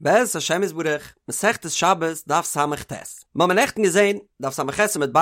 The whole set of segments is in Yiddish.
בעזרת השם יתברך, מסכת שבת, דף ס"ט. מ'האמיר נעכטן געזען, דף ס"ח עמוד ב',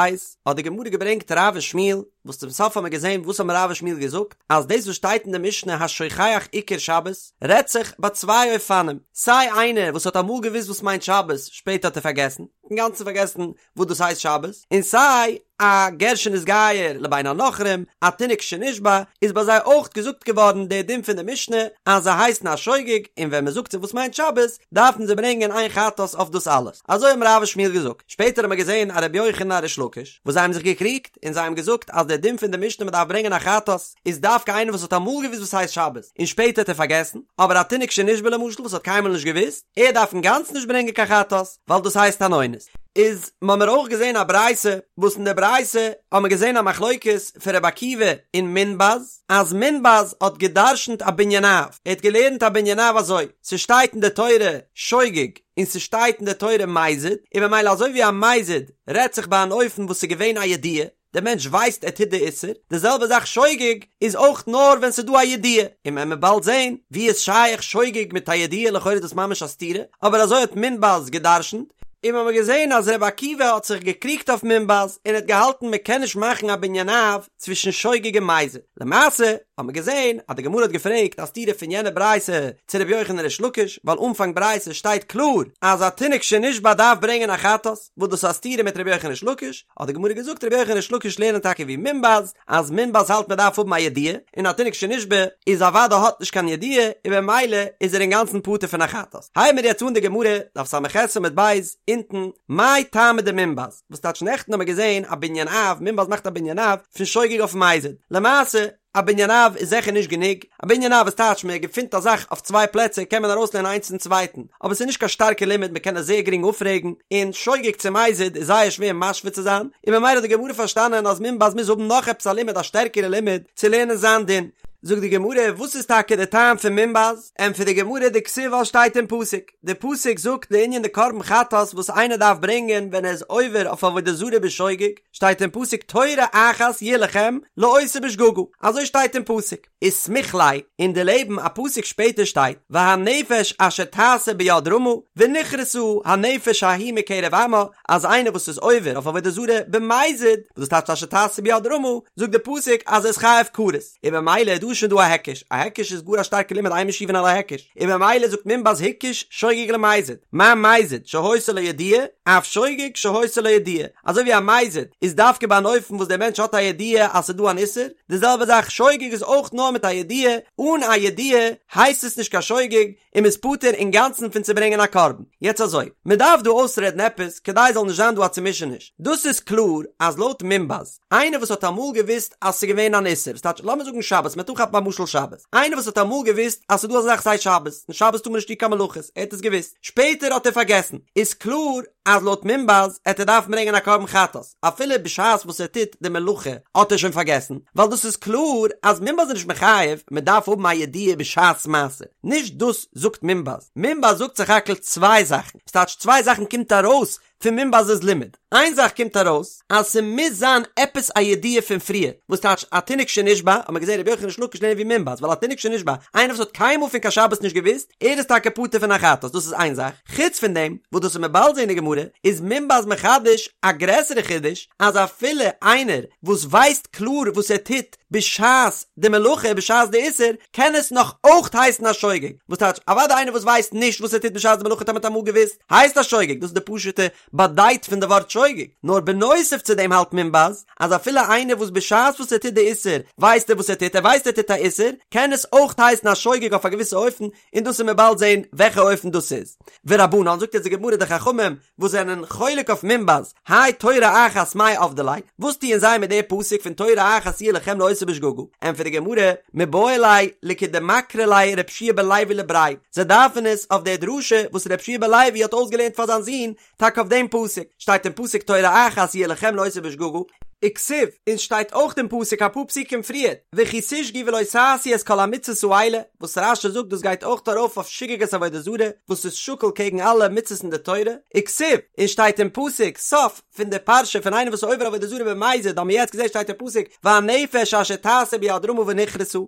האט די גמרא געברענגט רב ושמואל, וואס צום סוף האמיר געזען וואס האבן רב ושמואל געזאגט, אז דאס וואס שטייט אין די משנה השוכח עיקר שבת, רעדט זיך ביי צוויי אופנים, סיי איינער וואס האט אמאל געוואוסט וואס מיינט שבת, שפעטער האט ער פארגעסן, אינגאנצן פארגעסן וואס דאס הייסט שבת, און סיי א גר שנתגייר לבין הנכרים, א תינוק שנשבה, איז ביי זיי אויך געזאגט געווארן דער דין פון די משנה אז זיי הייסן א שוגג, און ווען מען זאגט זיי וואס מיינט שבת, דארפן זיי ברענגען איין חטאת אויף דאס אלעס. אזוי האבן רב ושמואל געזאגט. שפעטער האבן מיר געזען א רבי יוחנן א ריש לקיש, וואס זיי האבן זיך געקריגט, און זיי האבן געזאגט אז דער דין פון די משנה מען דארף ברענגען א חטאת, איז דווקא איינער וואס האט אמאל געוואוסט וואס הייסט שבת, און שפעטער האט ער פארגעסן, אבער א תינוק שנשבה למשל וואס האט קיינמאל נישט געוואוסט, ער דארף אינגאנצן נישט ברענגען קיין חטאת, ווייל דאס הייסט אן אונס. איז מ'האמיר אויך געזען א ברייתא, וואס אין די ברייתא האמיר געזען א מחלוקת פון רבי עקיבא און מונבז, אז מונבז האט גע'דרש'נט א בנין אב, ער האט געלערנט א בנין אב אזוי, ס'שטייט אין די תורה שוגג און ס'שטייט אין די תורה מזיד, און ממילא אזוי ווי א מזיד רעדט זיך ביי אן אופן וואס ס'איז געווען א ידיעה, דער מענטש ווייסט ער טוט די איסור, די זעלבע זאך שוגג איז אויך נאר ווען ס'איז דא א ידיעה, און מען וועט באלד זען ווי איז שייך שוגג מיט א ידיעה לכאורה איז דאס ממש א סתירה, אבער אזוי האט מונבז גע'דרש'נט, און מ'האמיר געזען אז ר' עקיבא האט זיך געקריגט אויף מונבז און האט געהאלטן מ'קען נישט מאכן א בנין אב צווישן שוגג און מזיד, למעשה האט מען געזען אז די גמרא האט געפרעגט א סתירה פון יענע ברייתא צו ר' יוחנן ריש לקיש, ווייל אנפאנג ברייתא שטייט קלאר אז א תינוק שנשבה דארף ברענגען א חטאת, וואס דאס איז א סתירה מיט ר' יוחנן ריש לקיש, האט די גמרא געזאגט רבי יוחנן ריש לקיש לערנען טאקע ווי מונבז, אז מונבז האלט מען דארף האבן א ידיעה, און א תינוק שנשבה איז אוודאי האט נישט קיין ידיעה, און במילא איז ער אינגאנצן פטור פון א חטאת. הייבן מיר יעצט אן די גמרא, דף ס"ח עמוד ב', אונטן, מאי טעמא דמונבז, וואס טייטש נעכטן האבן מיר געזען א בנין אב, מונבז מאכט א בנין אב פון שוגג אויף מזיד, למעשה, א בנין אב איז זיכער נישט גענוג, א בנין אב איז טייטש מען געפינט א זאך אויף צוויי פלעצער קען מען ארויסלערנען איינס צום צווייטן, אבער ס'איז נישט קיין שטארקע לימוד מען קען עס זייער גרינג אפפרעגן, און שוגג צו מזיד איז זייער שווער משווה צו זיין, און ממילא האט די גמרא פארשטאנען אז מונבז מוז האבן נאך עפעס א לימוד א שטערקערע לימוד צו לערנען זיין דין. זאגט די גמרא וואס איז טאקע די טעם פון מונבז? ענטפערט די גמרא דכתיב ווייל שטייט אין פסוק, די פסוק זאגט לענין די קרבן חטאת וואס איינער דארף ברענגען ווען ער איז עובר אויף עבודה זרה בשוגג, שטייט אין פסוק תורה אחת יהיה לכם לעושה בשגגה, אזוי שטייט אין פסוק, וסמיך ליה, און דערלעבן א פסוק שפעטער שטייט והנפש אשר תעשה ביד רמה ונכרתה הנפש ההיא מקרב עמה, אז איינער וואס איז עובר אויף עבודה זרה במזיד, וואס דאס טייטשט אשר תעשה ביד רמה, זאגט די פסוק אז ער איז חייב כרת. און במילא איז דא שוין דא א היקש, א היקש איז גאר א שטארקע לימוד אין משיבין על ההיקש, און במילא זאגט מונבז הקיש שוגג למזיד, מה מזיד שהיתה לו ידיעה, אף שוגג שהיתה לו ידיעה, אזוי ווי א מזיד איז דווקא ביי אן אופן וואס דער מענטש האט א ידיעה אז ס'איז דא אן איסור, די זעלבע זאך שוגג איז אויך נאר מיט א ידיעה, אן א ידיעה הייסט עס נישט קיין שוגג, און מ'איז פטור אינגאנצן פון צו ברענגען א קרבן. יעצט אזוי, מ'דארף דא אויסרעדן עפעס כדי ס'זאל נישט זיין דא א צומישעניש, דאס איז קלאר אז לויט מונבז, איינער וואס האט אמאל געוואוסט אז ס'איז געווען אן איסור, ס'טייטש לאמיר זאגן שבת, מ'וועט אנכאפן א משל שבת, איינער וואס האט אמאל געוואוסט אז ס'איז דא אזא זאך ס'הייסט שבת, און שבת טאר מען נישט טון קיין מלאכות, ער האט עס געוואוסט, שפעטער האט ער פארגעסן, איז קלאר אז לויט מונבז עט ער דארפן ברענגען א קרבן חטאת, אפילו בשעת וואס ער טוט די מלאכה האט ער שוין פארגעסן, ווייל דאס איז קלאר אז מונבז איז נישט מחייב, מ'דארף האבן א ידיעה בשעת מעשה, נישט דאס זאגט מונבז, מונבז זאגט סך הכל צוויי זאכן, ס'טייטש צוויי זאכן קומט ארויס פון מונבז'ס לימוד. איין זאך קומט ארויס, אז ס'מוז זיין עפעס א ידיעה פון פריער, וואס טייטש א תינוק שנשבה, האט מען געזען רבי יוחנן ריש לקיש לערנען ווי מונבז, ווייל א תינוק שנשבה, איינער וואס האט קיינמאל פון קיין שבת נישט געוואוסט, ער איז טאקע פטור פון א חטאת, דאס איז איין זאך. חוץ פון דעם, וואס דאס וועט מען באלד זען אין די גמרא, איז מונבז מחדש א גרעסערע חידוש, אז אפילו איינער וואס ווייסט קלאר וואס ער טוט בשעת די מלאכה, בשעת די איסור, קען עס נאך אויך הייסן א שוגג. וואס טייטש, אוודאי איינער וואס ווייסט נישט וואס ער טוט בשעת די מלאכה טאמער האט אמאל געוואוסט, הייסט א שוגג, דאס איז די פשוטע באדייט פון די ווארט שוגג, נאר בנוסף צו דעם האלט מונבז אז אפילו איינער וואס בשעת וואס ער טוט די איסור ווייסט ער וואס ער טוט, ער ווייסט ער טוט א איסור, קען עס אויך הייסן א שוגג אויף א געוויסע אופן, און דאס וועט מען באלד זען וועלכע אופן דאס איז. ורבנן, זאגט יעצט די גמרא די חכמים וואס זענען חולק אויף מונבז, האי תורה אחת מאי עבדי ליה, וואס טוען זיי מיט די פסוק פון תורה אחת יהיה לכם לעושה בשגגה? ענטפערט די גמרא, מיבעי ליה לכדמקרי ליה רב שיע בן לוי לבריה, זיי דארפן עס אויף די דרשה וואס רב שיע בן לוי האט אויסגעלערנט פאר זיין זון, טאקע אויף דעם פסוק, שטייט אין פסוק תורה אחת יהיה לכם לעושה בשגגה, וכתיב, און שטייט אויך אין פסוק אפאר פסוקים פריער, וכי תשגו ולא תעשו את כל המצות האלה, וואס רש"י זאגט דאס גייט אויך ארויף אויף שגגת עבודה זרה, וואס איז שקול קעגן אלע מצות אין די תורה, וכתיב, און שטייט אין פסוק, סוף פון די פרשה פון איינער וואס איז עובר עבודה זרה במזיד, האבן מיר יעצט געזען שטייט אין פסוק, והנפש אשר תעשה ביד רמה ונכרתה.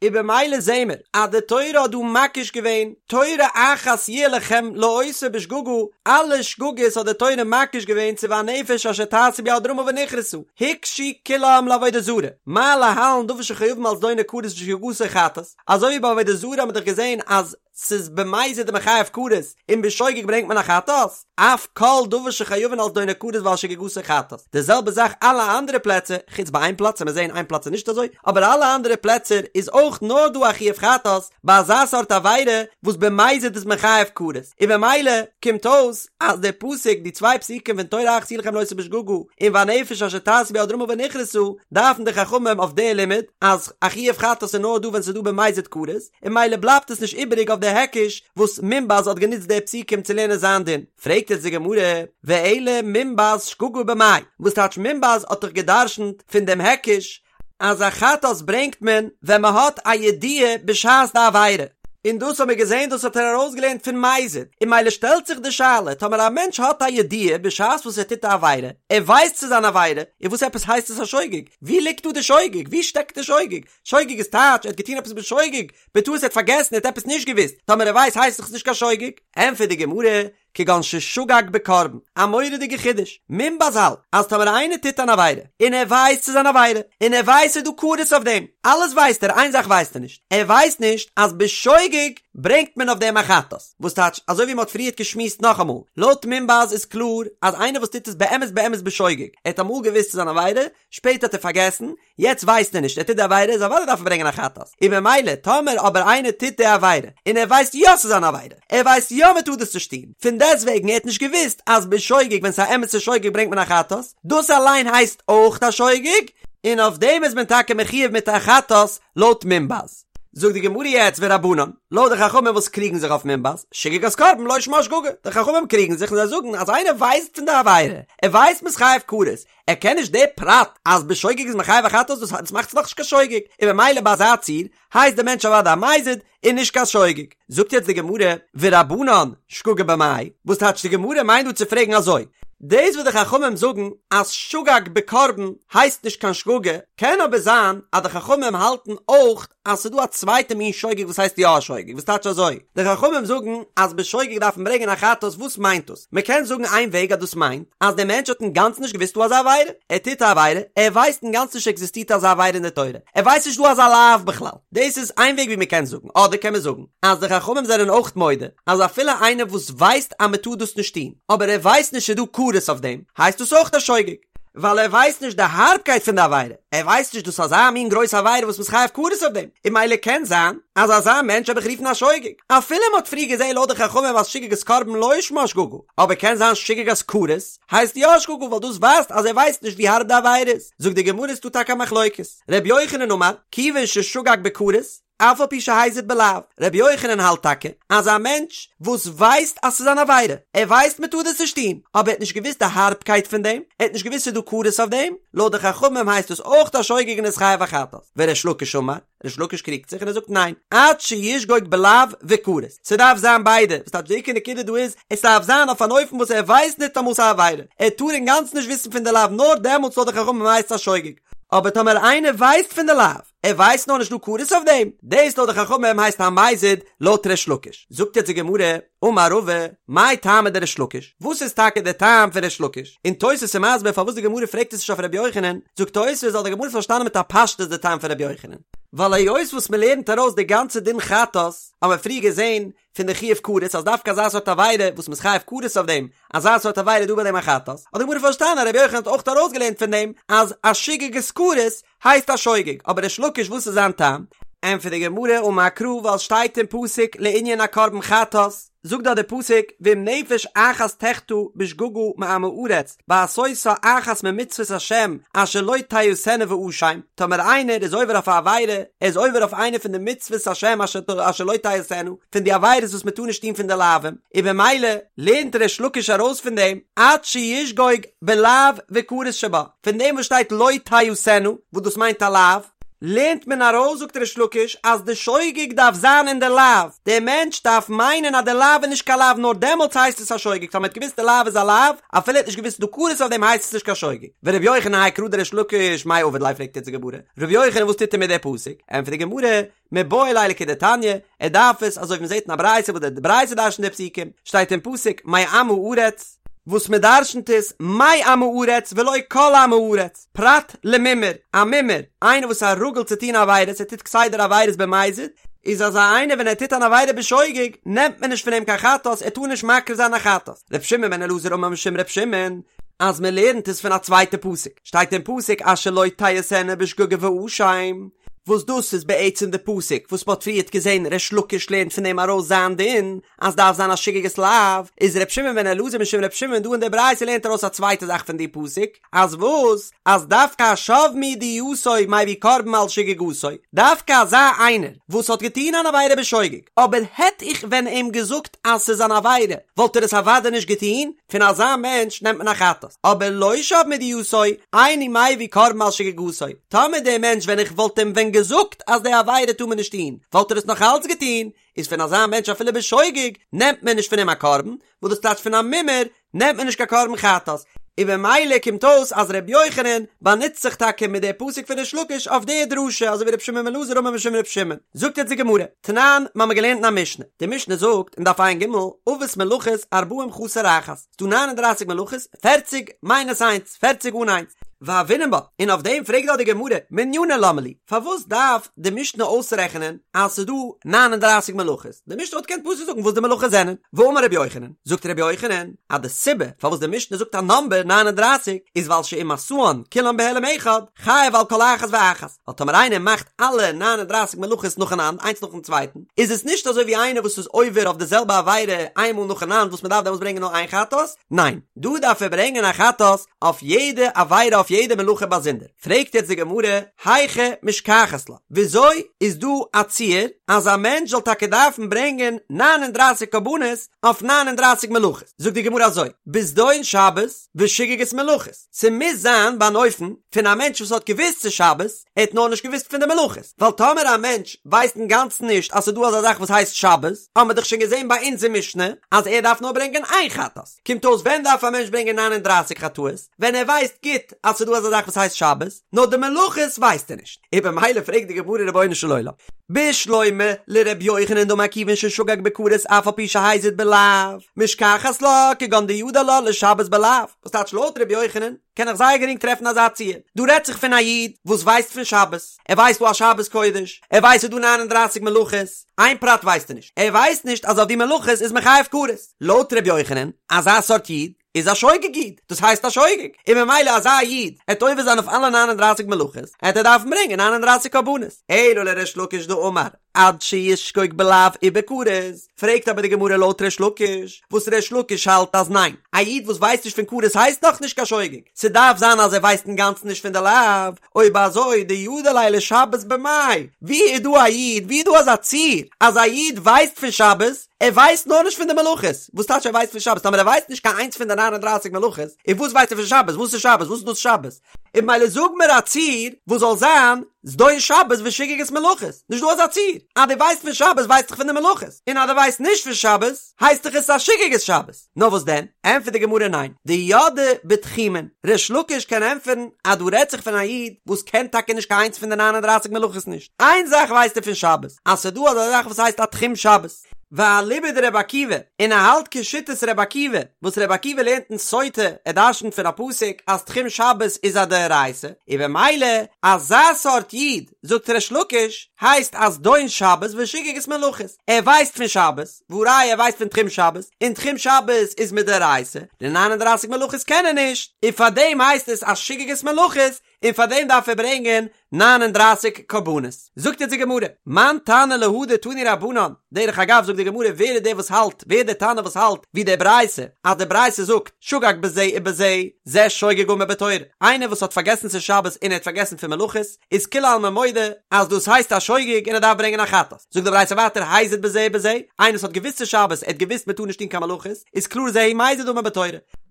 און במילא זעהן מיר אז די תורה האט דא מקיש געווען תורה אחת יהיה לכם לעושה בשגגה, אלע שגגות האט די תורה מקיש געווען צו והנפש אשר תעשה ביד רמה ונכרתה, הוקשו כולם לעבודה זרה, מה להלן דבר שחייבין על זדונו כרת ושגגתו חטאת, אזוי ווי ביי עבודה זרה האט מען דאך געזעהן אז ס'איז במזיד איז מען חייב כרת און בשוגג ברענגט מען א חטאת, אף כל דבר שחייבין על זדונו כרת ועל שגגתו חטאת, די זעלבע זאך אלע אנדערע פלעצער, חוץ ביי איין פלאץ, עמיר זעהן איין פלאץ איז נישט אזוי, אבער אלע אנדערע פלעצער איז אויך נאר דא א חיוב חטאת ביי אזא סארט עבירה וואס במזיד איז מען חייב כרת, און במילא קומט אויס אז דער פסוק, די צוויי פסוקים פון תורה אחת יהיה לכם לעושה בשגגה און והנפש אשר תעשה ביד רמה ונכרתה, דארפן די חכמים אויף די לימוד אז א חיוב חטאת איז נאר דא ווען ס'איז דא במזיד כרת, און ממילא בלייבט עס נישט איבעריג אויף די היקש וואס מונבז האט גענוצט די פסוקים צו לערנען זיין דין. פרעגט יעצט די גמרא, ואלא מונבז שגגה במאי, וואס טייטש מונבז האט דאך גע'דרש'נט פון דעם היקש אז א חטאת ברענגט מען ווען מען האט א ידיעה בשעת די עבירה, און דאס האבן מיר געזען דאס האט ער ארויסגעלערנט פון מזיד, און ממילא שטעלט זיך די שאלה, טאמער א מענטש האט א ידיעה בשעת וואס ער טוט א עבירה, ער ווייסט ס'איז אן עבירה, און וואס עפעס הייסט עס א שוגג? ווי ליגט דא די שוגג? ווי שטעקט די שוגג? שוגג איז טייטש ער האט געטון עפעס בשוגג, בטעות ער האט פארגעסן ער האט עפעס נישט געוואוסט, טאמער ער ווייסט הייסט עס נישט קיין שוגג. ענטפערט די גמרא, כגון ששגג בקרבן, א מורא'דיגע חידוש, מונבז האלט אז טאמער איינער טוט אן עבירה, און ער ווייסט ס'איז אן עבירה, און ער ווייסט ס'איז דא כרת אויף דעם, אלעס ווייסט ער, איין זאך ווייסט ער נישט, ער ווייסט נישט אז בשוגג ברענגט מען אויף דעם א חטאת, וואס טייטש, אזוי ווי מ'האט פריערט געשמועסט נאכאמאל, לויט מונבז איז קלאר אז איינער וואס טוט עס באמת באמת בשוגג, ער האט אמאל געוואוסט ס'איז אן עבירה, שפעטער האט ער פארגעסן, יעצט ווייסט ער נישט, ער טוט די עבירה, איז אוודאי דארף ער ברענגען א חטאת, און ממילא טאמער אבער איינער טוט די עבירה, און ער ווייסט יא ס'איז אן עבירה, ער ווייסט יא מ'טאר דאס נישט טון, פון דעסטוועגן ער האט נישט געוואוסט אז בשוגג ווען ס'איז א אמת'ע שוגג ברענגט מען א חטאת, דאס אליין הייסט אויך א שוגג, און אויף דעם איז מען טאקע מחיוב מיט א חטאת לויט מונבז. זאגט די גמרא יעצט ורבנן, לויט די חכמים וואס קריגן זיך אויף מונבז, שגגת קרבן לא שמה שגגה, די חכמים קריגן זיך און זיי זאגן אז איינער ווייסט פון די עבירה, ער ווייסט מ'איז חייב כרת, ער קען נישט די פרט אז בשוגג איז מען חייב א חטאת דאס דאס מאכט עס נאכנישט קיין שוגג, און במילא ביי אזא ציור הייסט די מענטש אוודאי א מזיד און נישט קיין שוגג. זאגט יעצט די גמרא, ורבנן שגגה במאי, וואס טייטש די גמרא מיינט דא צו פרעגן אזוי, דאס וואס די חכמים זאגן אז שגג בקרבן הייסט נישט קיין שגגה, קען אבער זיין אז די חכמים האלטן אויך אז ס'איז דא א צווייטע מין שוגג וואס הייסט יא א שוגג, וואס טייטש אזוי, די חכמים זאגן אז בשוגג דארף מען ברענגען א חטאת, וואס מיינט דאס? מען קען זאגן איין וועג אז דאס מיינט אז דער מענטש האט אינגאנצן נישט געוואוסט דא אזא עבירה, ער טוט א עבירה, ער ווייסט אינגאנצן נישט עקזיסטירט אזא עבירה אין די תורה, ער ווייסט נישט דא אזא לאו בכלל, דאס איז איין וועג ווי מען קען זאגן, אדער קען מען זאגן אז די חכמים זענען אויך מודה אז אפילו איינער וואס ווייסט אז מען טאר דאס נישט טון, אבער ער ווייסט נישט ס'איז דא כרת אויף דעם, הייסט דאס אויך א שוגג. ווייל ער ווייסט נישט די הארבקייט פון די עבירה, ער ווייסט נישט דאס אזא מין גרויסע עבירה וואס מ'איז חייב כרת אויף דעם, און ממילא קען זיין אז אזא מענטש וועל איך רופן א שוגג, אפילו מ'האט פריער געזען לויט די חכמים אז שגגת קרבן לא שמה שגגה, אבער קען זיין שגגת כרת הייסט יא שגגה ווייל דאס ווייזט אז ער ווייסט נישט ווי הארב די עבירה איז, זאגט די גמרא איז דא טאקע א מחלוקת, ר' יוחנן אמר, כיוון ששגג בכרת, אף על פי שהזיד בלאו, רבי יוחנן האלט טאקע אז א מענטש וואס ווייסט אז ס'איז אן עבירה, ער ווייסט מ'טאר דאס נישט טון, אבער ער האט נישט געוואוסט די הארבקייט פון דעם, ער האט נישט געוואוסט ס'איז דא כרת אויף דעם, לויט די חכמים הייסט דאס אויך א שוגג און איז חייב א חטאת. וריש לקיש אמר, ריש לקיש קריגט זיך און ער זאגט ניין, עד שישגוג בלאו וכרת, ס'דארף זיין ביידע, וואס טייטש די עיקר נקודה דא איז, עס דארף זיין אויף אן אופן וואס ער ווייסט ניטאמאל ס'איז א עבירה, ער טאר אינגאנצן נישט וויסן פון די לאו נאר דעמאלטס לויט די חכמים הייסט עס א שוגג, אבער טאמער איינער ווייסט פון די לאו, ער ווייסט נאר נישט דא כרת אויף דעם, דאס לויט די חכמים הייסט א מזיד לויט ריש לקיש. זאגט יעצט די גמרא, אמר רבא, מאי טעמא דריש לקיש, וואס איז טאקע דער טעם פון ריש לקיש? און תוס' איז מסביר פארוואס די גמרא פרעגט עס נישט אויף רבי יוחנן, זאגט תוס' ווייל די גמרא האט פארשטאנען מיט א פשטות די טעם פון רבי יוחנן, ווייל היות וואס מען לערנט ארויס די גאנצע דין חטאת, האבן מיר פריער געזען פון די חיוב כרת אז דווקא אזא סארט עבירה וואס מ'איז חייב כרת אויף דעם, אזא סארט עבירה איז דא ביי דעם א חטאת, האט די גמרא פארשטאנען אז רבי יוחנן האט אויך ארויסגעלערנט פון דעם אז א שגגת כרת הייסט א שוגג, אבער ריש לקיש וואס איז זיין טעם? ענטפערט די גמרא אמר קרא ווייל שטייט אין פסוק לענין א קרבן חטאת, זאגט דארט די פסוק ואם נפש אחת תחטא בשגגה מעם הארץ בעשותה אחת ממצוות השם אשר לא תעשינה ואשם, טאמער איינער איז עובר אויף א עבירה, ער איז עובר אויף איינע פון די מצוות השם אשר לא תעשינה, פון די עבירות וואס מען טאר נישט טון פון די לאווים, און במילא לערנט ריש לקיש ארויס פון דעם עד שישגוג בלאו וכרת שבה. פון דעם וואס שטייט לא תעשינה, וואס דאס מיינט א לאו, לערנט מען ארויס זאגט ריש לקיש אז די שוגג דארף זיין אין די לאו, דער מענטש דארף מיינען אז די לאו איז נישט קיין לאו נאר דעמאלטס הייסט עס א שוגג, טאמער ער האט געוואוסט די לאו איז א לאו אפילו ער האט נישט געוואוסט ס'דא כרת אויף דעם הייסט עס נישט קיין שוגג. ור' יוחנן האי קרא דריש לקיש מאי עביד ליה פרעגט יעצט די גמרא, ר' יוחנן וואס טוט ער מיט די פסוק? ענטפערט די גמרא, מיבעי ליה לכדתניא, ער דארף עס אזוי ווי מ'זעט אין א ברייתא וואס די ברייתא דרש'נט די פסוקים, שטייט אין פסוק מעם הארץ, וואס מ'דרש'נט איז מעם הארץ ולא כל עם הארץ, פרט למומר, א מומר, איינער וואס איז א רגיל צו טון עבירות, ער טוט כסדר עבירות במזיד, איז אזא איינער ווען ער טוט אן עבירה בשוגג, נעמט מען נישט פון אים קיין חטאת, ער טאר נישט מקריב זיין א חטאת. ר' שמעון בן אלעזר אמר משום ר' שמעון, אז מ'לערנט עס פון א צווייטע פסוק, שטייט אין פסוק אשר לא תעשינה בשגגה ואשם, וואס דאס איז בעצם די פסוק וואס מ'האט פריערט געזען ריש לקיש לערנט פון דעם ארויס זיין דין אז דארף זיין א שגגת לאו, איז ר' שמעון בן אלעזר משום ר' שמעון דא אין די ברייתא לערנט ארויס א צווייטע זאך פון די פסוק, אז וואס? אז דווקא השב מידיעתו מביא קרבן על שגגתו, דווקא אזא איינער וואס האט געטון אן עבירה בשוגג, אבער העט איך ווען אים געזאגט אז ס'איז אן עבירה וואלט ער עס אוודאי נישט געטון, פון אזא מענטש נעמט מען א חטאת, אבער לא שב מידיעתו, אינו מביא קרבן על שגגתו, טאמער דער מענטש ווען איך וואלט אים ווען געזאגט אז די עבירה טאר מען נישט טון, וואלט ער עס נאך אלץ געטון, איז פון אזא מענטש אפילו בשוגג נעמט מען נישט פון אים א קרבן, וואס דאס טייטש פון א מומר נעמט מען נישט קיין קרבן חטאת, און במילא קומט אויס אז ר' יוחנן באנוצט זיך טאקע מיט די פסוק פון ריש לקיש אויף די דרשה אזוי ווי ר' שמעון בן אלעזר אמר משום ר' שמעון. זאגט יעצט די גמרא, תנן, מ'האמיר געלערנט אין א משנה, די משנה זאגט אין דף ע"ג, אבות מלאכות ארבעים חסר אחת, ס'דא ניין און דרייסיג מלאכות, פערציג מיינוס איינס, פערציג אן איינס, והוינן בה, און אויף דעם פרעגט דאך די גמרא, מנינא למה לי, פארוואס דארף די משנה אויסרעכענען אז ס'איז דא ניין און דרייסיג מלאכות, די משנה וואלט געקענט פשוט זאגן וואס די מלאכות זענען, ואמר רבי יוחנן, זאגט רבי יוחנן, אז די סיבה פארוואס די משנה זאגט א נאמבער ניין און דרייסיג, איז ווייל שאם עשאן כולן בהעלם אחד, חייב על כל אחת ואחת, ווייל טאמער איינער מאכט אלע ניין און דרייסיג מלאכות נאכאנאנד איינס נאכן צווייטן, איז עס נישט אזוי ווי איינער וואס איז עובר אויף די זעלבע עבירה איין מאל נאכאנאנד וואס מען דארף דעמאלטס ברענגען נאר איין חטאת, ניין, דא דארף ער ברענגען א חטאת אויף יעדע עבירה אויף יעדע מלאכה באזונדער. פרעגט יעצט די גמרא, היכי משכחת לה, וויאזוי איז דא א ציור אז א מענטש זאל טאקע דארפן ברענגען ניין און דרייסיג קרבנות אויף ניין און דרייסיג מלאכות? זאגט די גמרא אזוי, בזדון שבת ושגגת מלאכות, ס'מוז זיין ביי אן אופן פון א מענטש וואס האט געוואוסט ס'איז שבת, ער האט נאר נישט געוואוסט פון די מלאכות, ווייל טאמער א מענטש ווייסט אינגאנצן נישט אז ס'איז דא אזא זאך וואס הייסט שבת, האמער דאך שוין געזען ביי אונז אין משנה אז ער דארף נאר ברענגען איין חטאת, קומט אויס ווען דארף א מענטש ברענגען ניין און דרייסיג חטאות? ווען ער ווייסט גוט אז ס'איז דא אזא זאך וואס הייסט שבת, נאר די מלאכות ווייסט ער נישט, און במילא פרעגט די גמרא רבונו של עולם, בשלמא לר' יוחנן דאמר כיוון ששגג בכרת אף על פי שהזיד בלאו, משכחת לה כגון דידע לה לשבת בלאו, וואס טייטש לויט ר' יוחנן קען איך זייער גרינג טרעפן אזא ציור, דא רעדט זיך פון א איד וואס ווייסט פון שבת, ער ווייסט דא א שבת קודש, ער ווייסט ס'איז דא ניין און דרייסיג מלאכות, איין פרט ווייסט ער נישט, ער ווייסט נישט אז אויף די מלאכות איז מען חייב כרת, לויט ר' יוחנן, אזא סארט איד, איז א שוגג איד, דאס הייסט א שוגג, און ממילא אזא איד עט עובר זיין אויף אלע ניין און דרייסיג מלאכות, עט ער דארפן ברענגען ניין און דרייסיג קרבנות. אלא לריש לקיש דאמר עד שישגוג בלאו ובכרת, פרעגט אבער די גמרא לויט ריש לקיש, וואס ריש לקיש האלט אז ניין, א איד וואס ווייסט נישט פון כרת הייסט נאך נישט קיין שוגג, ס'דארף זיין אז ער ווייסט אינגאנצן נישט פון די לאו, אויב אזוי דידע ליה לשבת במאי, ווי איז דא א איד, ווי איז דא אזא ציור אז א איד ווייסט פון שבת, ער ווייסט נאר נישט פון די מלאכות, וואס טייטש ער ווייסט פון שבת? טאמער ער ווייסט נישט קיין איינס פון די ניין און דרייסיג מלאכות, און וואס ווייסט ער פון שבת? וואס איז שבת? וואס איז דאס שבת? און ממילא זאג מיר א ציור וואס זאל זיין זדון שבת ושגגת מלאכות, נישט דא אזא ציור, אז דו ווייסט פון שבת ווייסט דאך פון די מלאכות, און אז דו ווייסט נישט פון שבת הייסט דאך עס א שגגת שבת, נאר וואס דען? ענטפערט די גמרא ניין, דידעי בתחומין, ריש לקיש קען ענטפערן אז דא רעדט זיך פון א איד וואס קען טאקע נישט קיין איינס פון די ניין און דרייסיג מלאכות נישט, איין זאך ווייסט ער פון שבת, אז ס'דא אזא זאך וואס הייסט א תחום שבת. ואליבא דרבי עקיבא, און ער האלט כשיטת רבי עקיבא, וואס רבי עקיבא לערנט אין סוטה, ער דרשנ'ט פון א פסוק אז תחום שבת איז א דאורייתא, און במילא אזא סארט איד, זאגט ריש לקיש, הייסט א זדון שבת ושגגת מלאכות, ער ווייסט פון שבת, והא ראיה ער ווייסט פון תחום שבת, און תחום שבת איז מדאורייתא, די ניין און דרייסיג מלאכות קען ער נישט, און פארדעם הייסט עס א שגגת מלאכות, און פאר דעם דארף ער ברענגען ניין און דרייסיג קרבנות. זאגט יעצט די גמרא, מאן תנא להא דתנו רבנן, דרך אגב זאגט די גמרא ווער איז דער וואס האלט, ווער איז דער תנא וואס האלט ווי די ברייתא, אז די ברייתא זאגט שגג בזה ובזה, זה שוגג גמור בתורה, איינער וואס האט פארגעסן ס'איז שבת און ער האט פארגעסן פון מלאכות, איז כולי עלמא מודה אז דאס הייסט א שוגג און ער דארף ברענגען א חטאת. זאגט די ברייתא ווייטער הזיד בזה ובזה, איינער וואס האט געוואוסט ס'איז שבת, ער האט געוואוסט מ'טאר נישט טון קיין מלאכות, איז קלאר זהו מזיד אמור בתורה.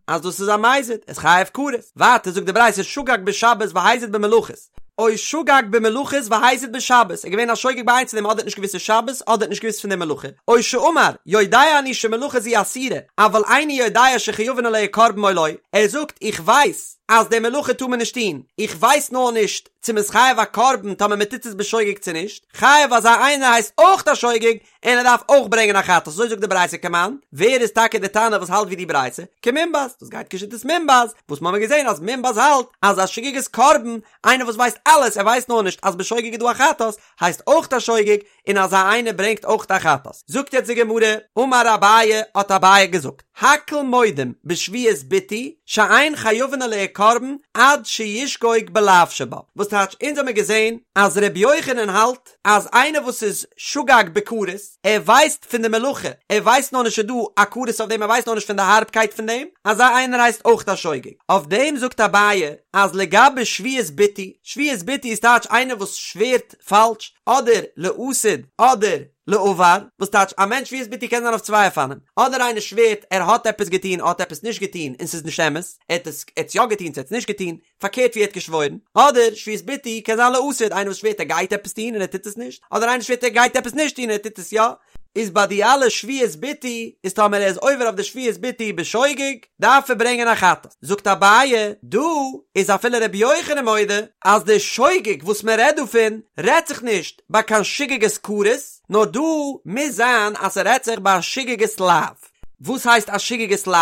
אז דאס איז א מזיד, איז חייב כרת. ווייטער זאגט די ברייתא שגג בשבת והזיד במלאכות. או שגג במלאכות והזיד בשבת, ער איז געווען א שוגג ביי איינס פון דעם אדער האט נישט געוואוסט ס'איז שבת אדער האט נישט געוואוסט פון די מלאכה, או שאמר, יודע אני שמלאכה זו אסורה, אבל איני יודע שחייבין עליה קרבן או לא, ער זאגט איך ווייס אז די מלאכה טאר מען נישט טון, איך ווייס נאר נישט צו מ'איז חייב א קרבן טאמער מ'טוט עס בשוגג צו נישט, חייב אזא איינער הייסט אויך א שוגג, און ער דארף אויך ברענגען א חטאת, אזוי זאגט די ברייתא כמאן, ווער איז טאקע די תנא וואס האלט ווי די ברייתא? כמונבז, דאס גייט כשיטת מונבז, וואס מ'האמיר געזען אז מונבז האלט אז א שגגת קרבן, איינער וואס ווייסט אלעס ער ווייסט נאר נישט אז בשוגג איז דא א חטאת, הייסט אויך א שוגג, און אזא איינער ברענגט אויך א חטאת. זאגט יעצט די גמרא, אמר אביי, האט אביי געזאגט, הכל מודים בשבועת ביטוי שאין חייבין עליה קרבן עד שישגוג בלאו שבה, וואס טייטש אונז האמיר געזען אז ר' יוחנן האלט אז איינער וואס איז שגג בכרת, ער ווייסט פון די מלאכה, ער ווייסט נאר נישט ס'איז דא א כרת אויף דעם, ער ווייסט נאר נישט פון די הארבקייט פון דעם, אזא איינער הייסט אויך א שוגג. אויף דעם זאגט אביי אז לגבי שבועת ביטוי, שבועת ביטוי איז טייטש איינער וואס שווערט פאלש, אדער לעתיד אדער לעבר, וואס טייטש א מענטש שבועת ביטוי קען זיין אויף צוויי אופנים, אדער איינער שווערט ער האט עפעס געטון, האט עפעס נישט געטון און ס'איז נישט אמת, ער האט עס ער האט יא געטון צו ער האט עס נישט געטון, פארקערט ווי ער האט געשוואוירן, אדער שבועת ביטוי קען זיין לעתיד, איינער וואס שווערט ער גייט עפעס טון און ער טוט עס נישט, אדער איינער שווערט ער גייט עפעס נישט טון און ער טוט עס יא, איז ביי די אלע שבועת ביטוי, איז טאמער ער איז עובר אויף די שבועת ביטוי בשוגג, דארף ער ברענגען א חטאת. זאגט אביי, דא איז אפילו רבי יוחנן מודה אז די שוגג וואס מען רעדט דא פון, רעדט זיך נישט ביי קיין שגגת כרת, נאר דא מוז זיין אז ס'רעדט זיך ביי א שגגת לאו. וואס הייסט א שגגת לאו?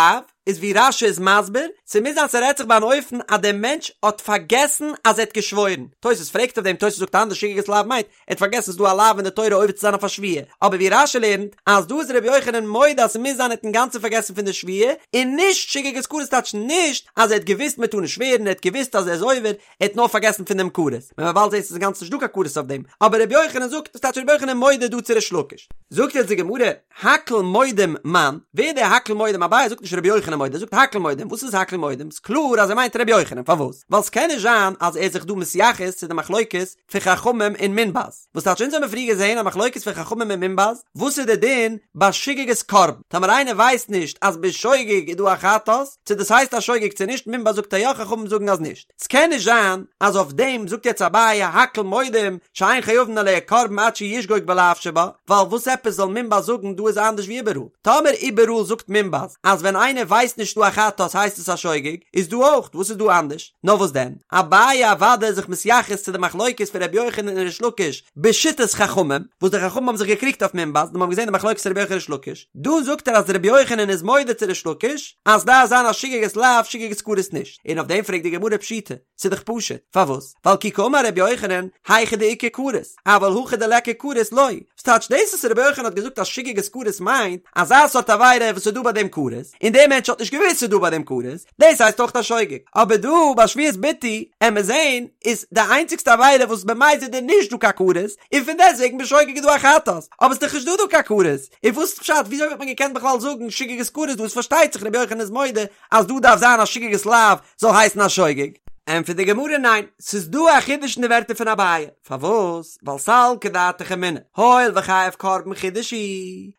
איז ווי רש"י איז מסביר, ס'מוז זיין ס'רעדט זיך ביי אן אופן אז דער מענטש האט פארגעסן אז ער האט געשוואוירן, תוס' פרעגט אויף דעם, תוס' זאגט אנדערש שגגת לאו מיינט, ער האט פארגעסן ס'איז דא א לאו אין די תורה עובר צו זיין אויף א שבועה, אבער ווי רש"י לערנט, אז דא איז ר' יוחנן מודה אז ס'מוז זיין ער האט אינגאנצן פארגעסן פון די שבועה, און נישט שגגת כרת טייטש נישט אז ער האט געוואוסט מ'טאר נישט שווערן, ער האט געוואוסט אז ער איז עובר, ער האט נאר פארגעסן פון דעם כרת, ווען מ'וועט באלד זען ס'איז אינגאנצן נישט דא קיין כרת אויף דעם, אבער ר' יוחנן זאגט, דאס טייטש ר' יוחנן מודה דא צו ריש לקיש. זאגט יעצט די גמרא, הכל מודים מאן, ווער דער הכל מודים? אביי זאגט נישט רבי יוחנן מודה, ער זאגט הכל מודים, וואס איז הכל מודים? ס'איז קלאר אז ער מיינט רבי יוחנן, פארוואס? ווייל ס'קען נישט זיין אז ער איז זיך דא מתייחס צו די מחלוקת פון חכמים און מונבז, וואס טייטש אונז האבן פריער געזען א מחלוקת פון חכמים און מונבז, וואס איז די דין ביי שגגת קרבן, טאמער איינער ווייסט נישט אז בשוגג איז דא א חטאת, צו דאס הייסט א שוגג צו נישט, מונבז זאגט אז יא חכמים זאגן אז נישט. ס'קען נישט זיין אז אויף דעם זאגט יעצט אביי הכל מודים שאין חייבין עליה קרבן עד שישגוג בלאו שבה, ווייל וואס עפעס זאל מונבז זאגן דא איז אנדערש ווי איבעראל? טאמער איבעראל זאגט מונבז אז ווען איינער ווייסט נישט דא א חטאת הייסט עס א שוגג, איז דא אויך, וואס איז דא אנדערש? נאר וואס דען? אביי אוודאי איז זיך מתייחס צו די מחלוקת פון ר' יוחנן און ריש לקיש בשיטת חכמים, וואס די חכמים האבן זיך געקריגט אויף מונבז, און מ'האט געזען די מחלוקת ר' יוחנן ריש לקיש, דא זאגט ער אז ר' יוחנן איז מודה צו ריש לקיש אז דארף זיין א שגגת לאו שגגת כרת נישט. און אויף דעם פרעגט די גמרא פשיטא, ס'איז דאך פשוט, פארוואס? ווייל כי קאמר רבי יוחנן, היכא דאיכא כרת, אבל הכא דליכא כרת לא. וואס טייטש דאס וואס רבי יוחנן האט געזאגט אז שגגת כרת מיינט, אזא סארט עבירה וואס איז דא ביי דעם כרת, און דער מענטש האט נישט געוואוסט ס'איז דא ביי דעם כרת, דאס הייסט אויך א שוגג. אבער דא ביי שבועת ביטוי, עמיר זעהן, איז די איינציגסטע עבירה וואס במזיד איז נישט דא קיין כרת, און פון דעסטוועגן בשוגג איז דא א חטאת, אבער ס'איז דאך נישט דא דא קיין כרת, און וואס איז פשט וויאזוי וואלט מען געקענט בכלל זאגן שגגת כרת דא? עס פארשטייט זיך רבי יוחנן איז מודה אז דא דארף זיין א שגגת לאו זאל הייסן א שוגג? ענטפערט די גמרא ניין, ס'איז דא א חידוש אין די ווערטער פון אביי, פארוואס? ווייל סלקא דעתך אמינא, הואיל וחייב קרבן חידוש הוא,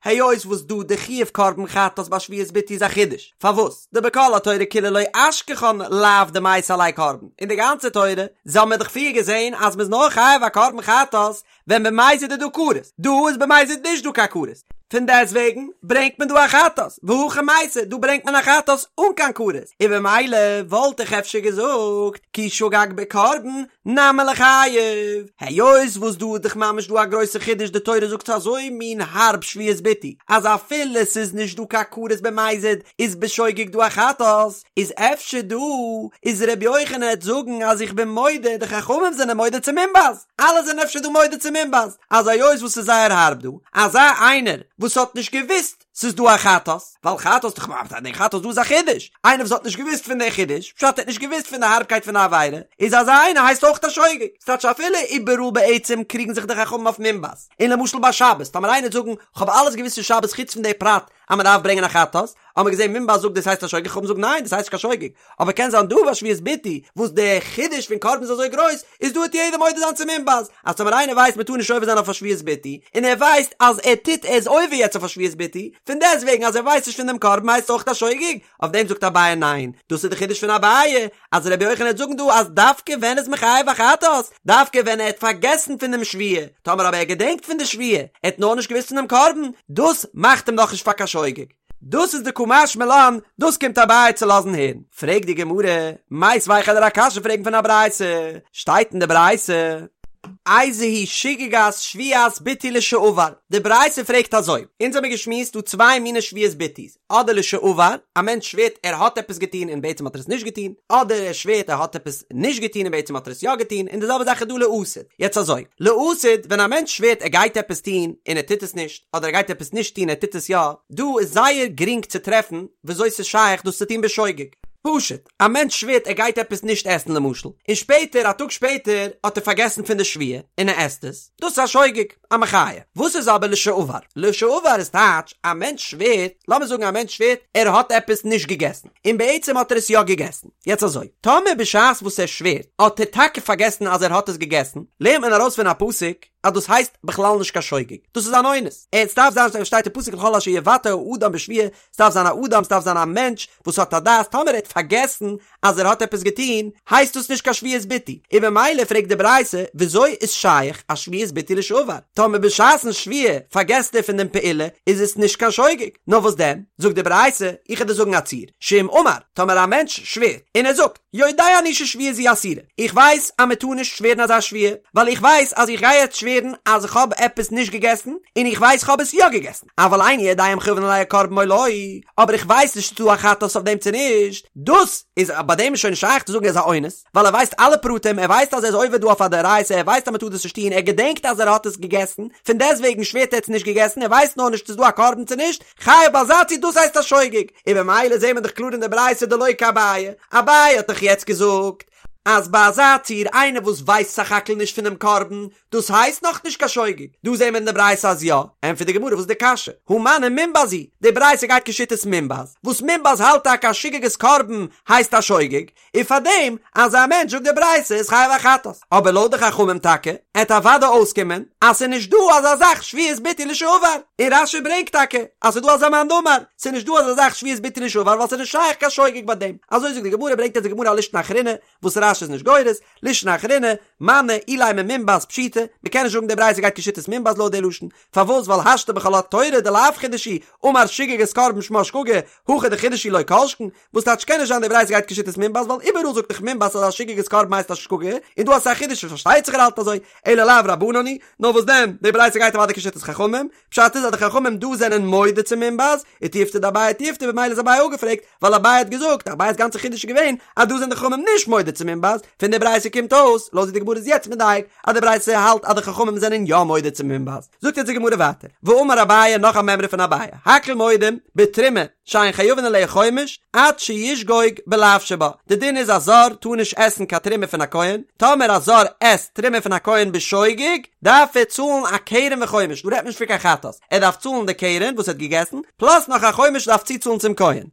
היות וואס דא די חיוב קרבן חטאת ביי שבועת ביטוי איז א חידוש, פארוואס? דבכל התורה כולה לא אשכחן לאו דמייתי עליה קרבן, אין די גאנצע תורה, האבן מיר דאך פריער געזען אז מ'איז נאר חייב א קרבן חטאת ווען במזיד איז דא כרת, דא איז במזיד נישט דא קיין כרת, פון דעסט וועגן ברענגט מען דא א חטאת, והכא מייתי, דא ברענגט מען א חטאת אן קיין כרת, און במילא וואלט איך אפשר געזאגט כי שגג בקרבן נמי ליחייב, היות וואס דא איז דאך ממש דא א גרויסע חידוש די תורה זאגט אזוי מין הארב שבועת ביטוי אז אפילו ס'איז נישט דא קיין כרת במזיד איז בשוגג דא א חטאת, איז אפשר דא איז ר' יוחנן העט זאגן אז איך בין מודה די חכמים זענען מודה צו מונבז. אלע זענען אפשר דא מודה צו מונבז אז היות וואס ס'איז זייער הארב דא, אזא איינער וואס האט נישט געוואוסט ס'איז דא א חטאת, ווייל חטאת דאך ממש די חטאת דא איז א חידוש, איינער וואס האט נישט געוואוסט פון די חידוש, פשט ער האט נישט געוואוסט פון די הארבקייט פון די עבירה, איז אזא איינער הייסט אויך א שוגג, ס'טייטש אפילו איבעראל בעצם קריגן זיך די חכמים אויף מונבז, און למשל ביי שבת, טאמער איינער וועט זאגן כ'האב אלעס געוואוסט פון שבת חוץ פון די פרט אז מ'דארף ברענגען א חטאת, האבן מיר געזען מונבז זאגט דאס הייסט א שוגג, חכמים זאגן ניין דאס הייסט נישט קיין שוגג, אבער קען זיין דא ביי שבועת ביטוי וואס די חידוש פון קרבן איז אזוי גרויס, איז דא וועט יעדער מודה זיין צו מונבז, אז טאמער איינער ווייסט מ'טאר נישט עובר זיין אויף א שבועת ביטוי, און ער ווייסט אז ער טוט ער איז עובר יעצט אויף א שבועת ביטוי, פון דעסטוועגן אז ער ווייסט נישט פון דעם קרבן הייסט אויך א שוגג, אויף דעם זאגט אביי ניין, דאס איז די חידוש פון אביי, אז רבי יוחנן וועט זאגן דא אז דווקא ווען איז מען חייב א חטאת, דווקא ווען ער האט פארגעסן פון דעם שבועה, טאמער אבער ער געדענקט פון די שבועה, ער האט נאר נישט געוואוסט פון דעם קרבן, דאס מאכט אים נאכנישט פאר קיין שוגג. דאס איז די קא משמע לן, דאס קומט אביי צו לאזן הערן. פרעגט די גמרא, מיתיבי איך וועל דיר א קשיא פרעגן פון א ברייתא, שטייט אין די ברייתא, איזוהי שגגת שבועת ביטוי לשעבר, די ברייתא פרעגט אזוי, אונז האמיר געשמועסט דא צוויי מיני שבועת ביטוי'ס, אדער לשעבר, א מענטש שווערט ער האט עפעס געטון און בעצם האט ער עס נישט געטון, אדער ער שווערט ער האט עפעס נישט געטון און בעצם האט ער עס יא געטון, און די זעלבע זאך איז דא לעתיד. יעצט אזוי, לעתיד, ווען א מענטש שווערט ער גייט עפעס טון און ער טוט עס נישט, אדער ער גייט עפעס נישט טון און ער טוט עס יא, דא איז זייער גרינג צו טרעפן וויאזוי ס'איז שייך דאס צו טון בשוגג. פשוט, א מענטש שווערט ער גייט עפעס נישט עסן למשל, און שפעטער, א טאג שפעטער, האט ער פארגעסן פון די שבועה און ער עסט עס, דאס איז א שוגג. א מחיה. וואס איז אבער לשעבר? לשעבר איז טייטש, א מענטש שווערט, לאמיר זאגן א מענטש שווערט ער האט עפעס נישט געגעסן, און בעצם האט ער עס יא געגעסן. יעצט אזוי, טאמער בשעת וואס ער שווערט האט ער טאקע פארגעסן אז ער האט עס געגעסן, לערנט מען ארויס פון א פסוק אז דאס הייסט בכלל נישט קיין שוגג, דאס איז אן אונס. עס דארף זיין, שטייט אין פסוק לכל אשר יבטא האדם בשבועה, ס'דארף זיין א אדם, ס'דארף זיין א מענטש וואס האט א דעת, טאמער ער האט פארגעסן אז ער האט עפעס געטון, הייסט דאס נישט קיין שבועת ביטוי, און במילא פרעגט די ברייתא, וויאזוי איז שייך א שבועת ביטוי לשעבר? טאמער בשעת'ן שבועה פארגעסט ער פון דעם פעולה, איז עס נישט קיין שוגג, נאר וואס דען? זאגט די ברייתא, איך וועל דיר זאגן א ציור, שאם אמר, טאמער א מענטש שווערט, און ער זאגט, יודע אני ששבועה זו אסורה, איך ווייס אז מען טאר נישט שווערן אזא שבועה, ווייל איך ווייס אז איך גיי יעצט שווערן אז איך האב עפעס נישט געגעסן, און איך ווייס איך האב עס יא געגעסן, אבל איני יודע אם חייבין עליה קרבן או לא, אבער איך ווייס נישט צו ס'דא א חטאת אויף דעם צו נישט, דאס איז ביי דעם איז שוין נישט שייך צו זאגן ער איז א אונס, ווייל ער ווייסט אלע פרטים, ער ווייסט אז ער איז עובר דא אויף א דאורייתא, ער ווייסט אז מען טאר דאס נישט טון, ער געדענקט אז ער האט עס געגעסן, פון דעסטוועגן שווערט ער האט עס נישט געגעסן, ער ווייסט נאר נישט צו ס'דא א קרבן צו נישט, חייב ביי אזא ציור דאס הייסט א שוגג, און במילא זעהן מיר דאך קלאר אין די ברייתא דלא כאביי, אביי האט דאך יעצט געזאגט אז ביי אזא ציור איינער וואס ווייסט סך הכל נישט פונעם קרבן, דאס הייסט נאך נישט קיין שוגג, דא זעהן מיר אין די ברייתא אז יא, ענטפערט די גמרא וואס איז די קשיא, הא מני מונבז היא, די ברייתא גייט כשיטת מונבז, וואס מונבז האלט טאקע אז שגגת קרבן הייסט א שוגג, און פאר דעם אזא מענטש זאגט די ברייתא איז חייב א חטאת, אבער לויט די חכמים טאקע עט אוודאי אויסקומען אז ס'איז נישט דא אזא זאך שבועת ביטוי לשעבר, און רש"י ברענגט טאקע אז ס'איז דא אזא מאן דאמר, ס'איז נישט דא אזא זאך שבועת ביטוי לשעבר ווייל ס'איז נישט שייך קיין שוגג ביי דעם, אזוי זאגט די גמרא ברענגט אונז די גמרא א לישנא אחרינא וואס רש"י איז נישט גורס, לישנא אחרינא, מני אילימא מונבז פשיטא, מ'קען נישט זאגן די ברייתא גייט כשיטת מונבז לויט די לשון, פארוואס ווייל השתא בכל התורה דלאו חידוש הוא, אמר שגגת קרבן שמה שגגה, הכא דחידוש הוא לא כל שכן, וואס טייטש קען נישט זיין די ברייתא גייט כשיטת מונבז ווייל איבעראל זאגט דאך מונבז אז א שגגת קרבן הייסט א שגגה, און דא אז ס'איז א חידוש פארשטייט זיך ער האלט אזוי, אלא לאו רבנן היא, נאר וואס דען, די ברייתא גייט אוודאי כשיטת חכמים, פשט איז אז די חכמים דא זענען מודה צו מונבז, ותיובתא דאביי תיובתא במילא איז אביי אפגעפרעגט, ווייל אביי האט געזאגט, אביי'ס גאנצע חידוש איז געווען אז דא זענען די חכמים נישט מודה צו מונבז, פון די ברייתא קומט אויס, לויט ווי די גמרא איז יעצט מדייק, אז די ברייתא האלט אז די חכמים זענען יא מודה צו מונבז. זאגט יעצט די גמרא ווייטער, ואמר אביי נאך א מימרא פון אביי, הכל מודים בתרומה שאין חייבין עליה חומש עד שישגוג בלאו שבה, די דין איז א זר טאר נישט עסן קיין תרומה פון א כהן, טאמער א זר עסט תרומה פון א כהן בשוגג, דארף ער צאלן א קרן וחומש, דא רעדט מען נישט פון קיין חטאת, ער דארף צאלן די קרן וואס ער האט געגעסן, פלאס נאך א חומש דארף צוצאלן צום כהן.